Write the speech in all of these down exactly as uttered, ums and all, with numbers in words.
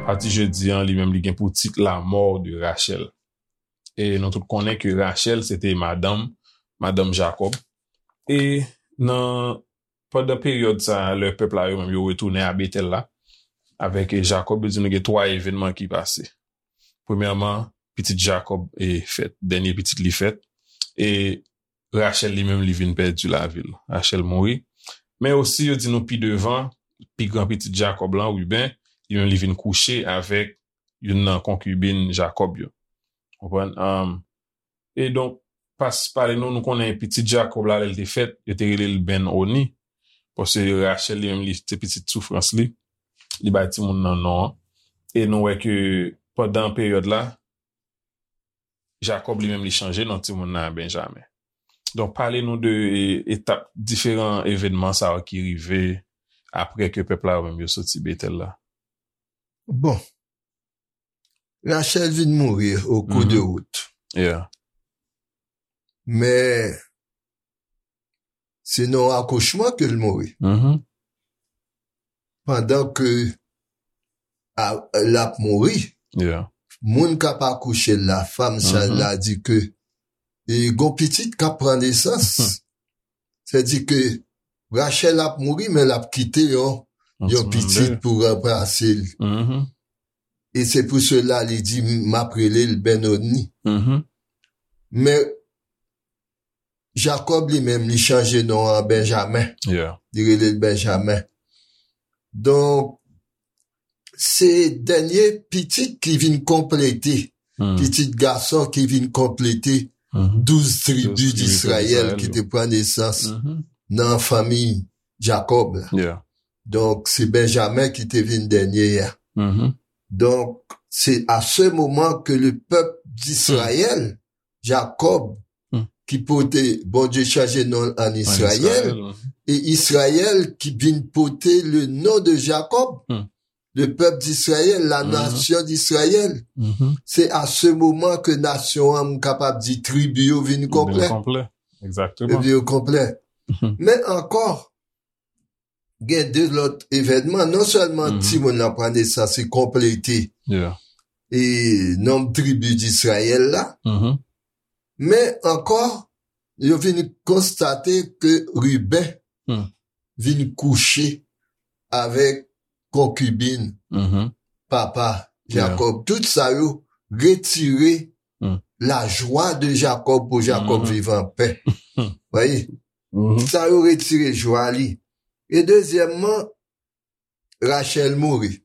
Pati jedi an, li menm, li gen pou tit La mort de Rachel. E nou tout konnen ke Rachel, se te madanm, madanm Jakòb. E nan, pandan peryòd sa a, lè pèp la yo menm, yo retounen a Betèl la, avèk Jakòb, yo di nou gen twa evènman ki pase. Premyèman, pitit Jakòb e fèt, dènye pitit li fèt, e Rachèl li menm li vin pèdi lavi l. Rachèl mouri. Men osi, yo di nou pi devan, pi gran pitit Jakòb lan, Riben, li menm li vin kouche avèk youn nan konkibin Jakòb yo. Konprann? Um, e donk, pas pale nou, nou konnen pitit Jakòb la, lè l te fèt, yo te rele l Ben Oni. Paske Rachèl li menm, li, se pitit soufrans li. Li bay timoun nan non an. E nou wè ke pandan peryòd la, Jakòb li menm li chanje non timoun nan a Benjamen. Donk, pale nou de e, etap, diferan evènman sa yo ki rive apre ke pèp la yo menm yo soti Betèl la. Bon, Rachèl vin mouri o kou de wout. Yeah. Men, se nan yon akouchman ke l mouri. Pandan ke a- l ap mouri, Yeah. moun k ap akouche l la, fanm sa la di ke e gon pitit k ap pran nesans. Sèdi ke Rachèl ap mouri, men l ap kite yon, yon pitit pou ranplase l. E se pou sela li di, "M ap rele l Benoni." Men Jakòb li menm, li chanje non an Benjamen. Yeah. Li rele l Benjamen. Donk, se dènye pitit ki vin konplete, pitit gason ki vin konplete douz tribi Disrayèl ki te pran nesans nan fanmi Jakòb la. Yeah. Donk, se Benjamen ki te vin dènye a. Donk, se a se moman ke le pèp Disrayèl, Jakòb, ki pote, Bondye chanje non l an Israël, e Israël ki vin pote le non de Jacob, le peuple d'Israël, la nation d'Israël. Se a se moman ke nasyon an, m kapab di, tribi yo vin konplè. Konplè. Egzakteman. Tribi yo konplè. Men ankò, gen de lòt evènman. Non sèlman timoun nan pran nesans e konplete e nonb tribi d'Israël la, men ankò, yo vin konstate ke Riben vin kouche avèk konkibin papa Jacob. Tout sa yo retire lajwa de Jacob pou Jacob viv anpè. Voyez? Sa yo retire jwa li. E dezyèmman, Rachel mouri.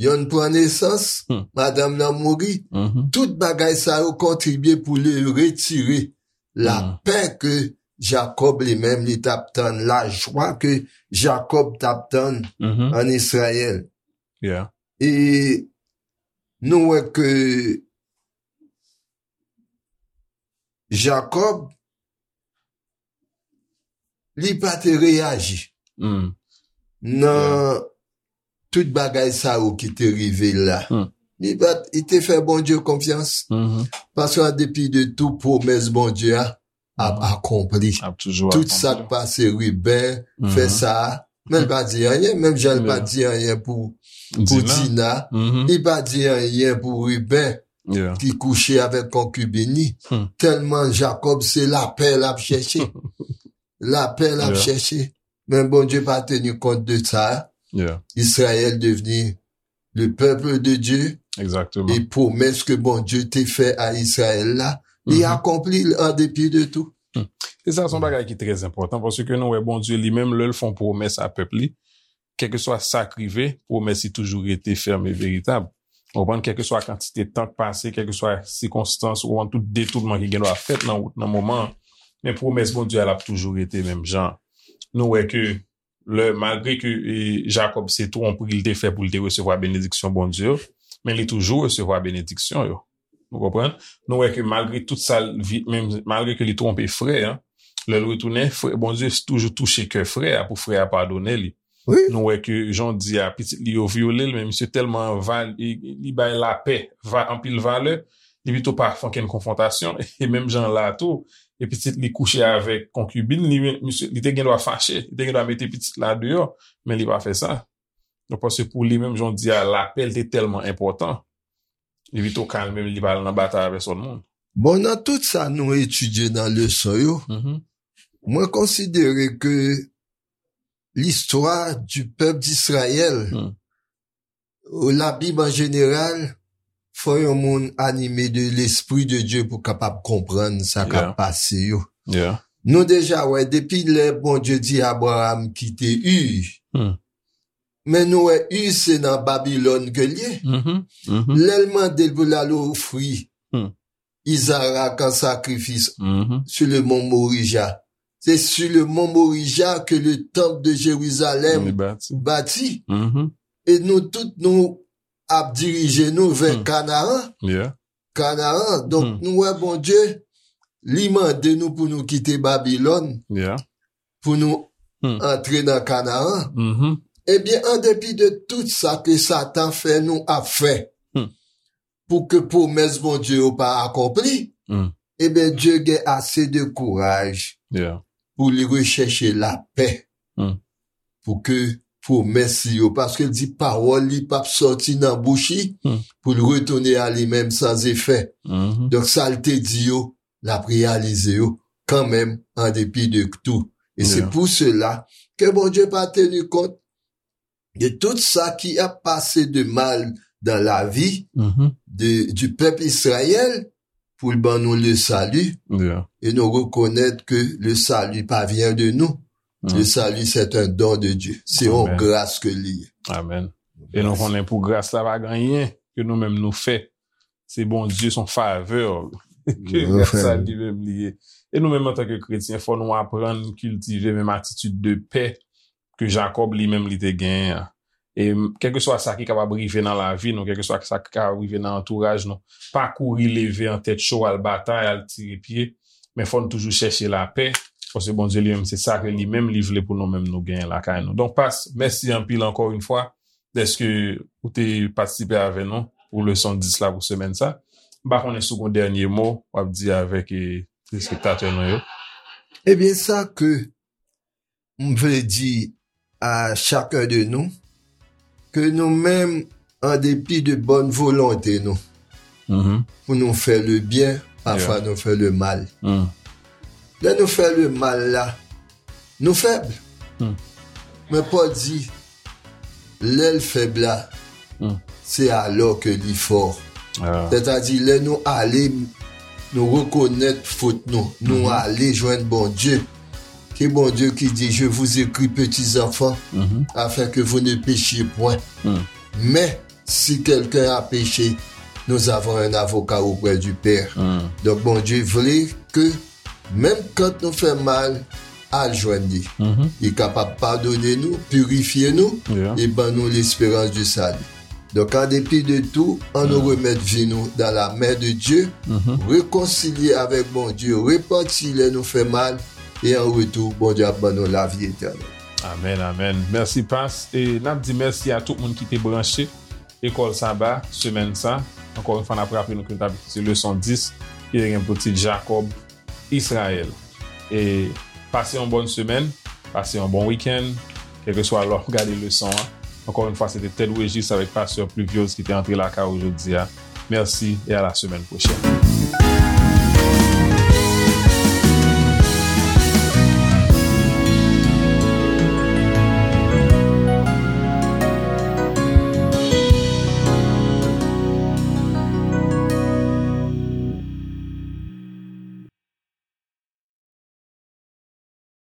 Yonn pran nesans, madanm nan mouri. Tout bagay sa yo kontribye pou li retire lapè ke Jacob li menm li t ap tann, lajwa ke Jacob t ap tann an Israël. Yeah. E nou wè ke Jacob, li pa te reyaji nan tout bagay sa yo ki te rive l la. Li pa, li te fè Bondye konfyans. Paske an depi de tou, pwomès Bondye a ap akonpli. Ap toujou Tout sa k akonpli. Pase, Riben fè sa, men l pa di anyen, menm jan l pa di anyen pou, pou Dina. Dina, li pa di anyen pou Riben Yeah. ki kouche avèk konkibin li. Tèlman Jacob se lapè l ap chèche. Lapè l ap Yeah. Chèche. Men Bondye pa teni kont de sa. Yeah. Israël devni le peuple de Dieu. Egzakteman. E pwomès ke Bondye te fè a Israël la, li akonpli l an depi de tou. E sa se yon bagay ki trè enpòtan, paske nou wè Bondye li menm, lè l fè yon pwomès a pèp li, kèlkeswa sa k rive, pwomès li toujou rete fèm e veritab. Ou konprann, kèlkeswa kantite tan k pase, kèlkeswa sikonstans, ou konprann, tout detounman ki gen dwa fèt nan wout nan moman an, men pwomès Bondye a, l ap toujou rete menm jan. Nou wè ke lè, malgre ke e, Jacob se twonpri l te fè pou l te resevwa benediksyon Bondye yo, men li toujou resevwa benediksyon yo. Ou konprann? Nou wè ke malgre tout sa, l vi- menm malgre ke li twonpe frè an, lè l retounen, frè, Bondye toujou touche kè frè a pou frè a padone li. Wi. Nou wè ke jan w di a, pitit li yo vyole l, men misye tèlman val, li, li bay lapè va, anpil valè, Li pito pa fè okenn konfwontasyon. E menm jan la tou, e pitit li kouche avèk konkibin li, men misye, li te gen dwa fache, li te gen dwa mete pitit la deyò, men li pa fè sa. Donk, paske pou li menm, jan w di a, lapè l te tèlman enpòtan, li pito kalme l, li pa al nan batay avèk sòt moun. Bon, nan tout sa nou etidye nan leson yo, Mhm. mwen konsidere ke listwa di pèp Disrayèl, Hmm. la Bib an jeneral, fò yon moun anime de Lespri de Dye pou kapab konprann sa k ap Yeah. pase yo. Yeah. Nou deja wè, depi lè Bondye di Abraram kite Ur, Hmm. men nou wè Ur se nan Babilòn ke l ye. Mhm. Mhm. Lè l mande l pou l al ofri Hmm. Izarak an sakrifis Mhm. sou le mont Morija. Se sou le mont Morija ke le tanp de Jerizalèm Li bati. bati. Mhm. E nou tout, nou ap dirije nou vè Hmm. Kanaan. Yeah. Kanaan. Donk, Hmm. nou wè Bondye, li mande nou pou nou kite Babilòn, Yeah. pou nou Hmm. antre nan Kanaan. Mhm. Ebyen, an depi de tout sa ke Satan fè nou ap fè, Hmm. pou ke pwomès Bondye yo pa akonpli, Hmm. ebyen, Dye gen ase de kouraj Yeah. pou li rechèche lapè, Hmm. pou ke pwomès li yo, paske l di pawòl li p ap sòti nan bouch li Hmm. pou l retounen a li menm san efè. Mhm. Donk, sa l te di yo, l ap reyalize yo kanmenm, an depi de tou. E se Yeah. pou sela ke Bondye pa teni kont de tout sa ki ap pase de mal dans la vie Mhm. de, du peuple Israël, pou l ban nou le salut. Yeah. E nou rekonèt ke le salut pa vient de nous. Mm. Le salut, c'est un don de Dieu. Se yon Amen. gras ke li ye. Amen. E nou Gras. konnen pou gras la pa gen anyen ke nou menm nou fè. Se Bondye, se yon favè ke Yon gras sa favè. li menm li ye. E nou menm antanke kretyen, fò nou aprann kiltive menm atitid de pè ke Jakòb li menm li te genyen an. E m, kèlkeswa sa ki kapab rive nan lavi nou, kèlkeswa sa ki kapab rive nan antouraj nou, pa kouri leve an tèt cho, al batay, al tire pye, men fò n toujou chèche lapè, paske Bondye li menm, se sa ke li menm li vle pou nou menm nou genyen lakay nou. Donk, Pas, mèsi anpil ankò yon fwa dèske ou te patisipe avè nou pou leson dis la pou semèn sa. M pa konnen si w gen dènye mo w ap di avèk, eh, telespektatè nou yo. Ebyen, sa ke m vle di a chacun de nous, ke nou menm, an depi de bòn volonte nou, Mhm. pou nou fè le byen, pafwa Yeah. nou fè le mal. Mm. Lè nou fè le mal la, nou fèb. Mm. Men Pòl di, lè l fèb la, Mm. se alò ke li fò. Ah. Sètadi, lè nou ale, nou rekonèt fot nou, nou Mhm. ale jwenn Bondye. Ke Bondye ki di, je vous écris, petits enfants, Mhm. afin que vous ne péchiez point. Mm. Mais si quelqu'un a péché, nous avons un avocat auprès du Père. Mm. Donk, Bondye vle ke menm kan nou fè mal, al jwenn li. Mhm. Li kapab padone nou, pirifye nou, Yeah. e ban nou lesperans di sali. Donk, an depi de tou, ann nou Mm. remèt vi nou dans la main de Dieu, Mhm. rekonsilye avèk Bondye, repanti lè nou fè mal, e an retou, Bondye ap ban nou lavi etènèl. Amèn, amèn. Mèsi, Pas. E n ap di mèsi a tout moun ki te branche Lekòl Saba, semèn sa. Ankò yon fwa, n ap raple nou ke nou t ap etidye leson dis, ki te gen pou tit Jakòb, Izrayèl. E pase yon bòn semèn, pase yon bon wikenn, kèlkeswa lè w ap gade leson an. Ankò yon fwa, se te Ted Regis avèk Pastè Pluviose ki te antre lakay ou jodi a. Mèsi e a la semèn pwochèn.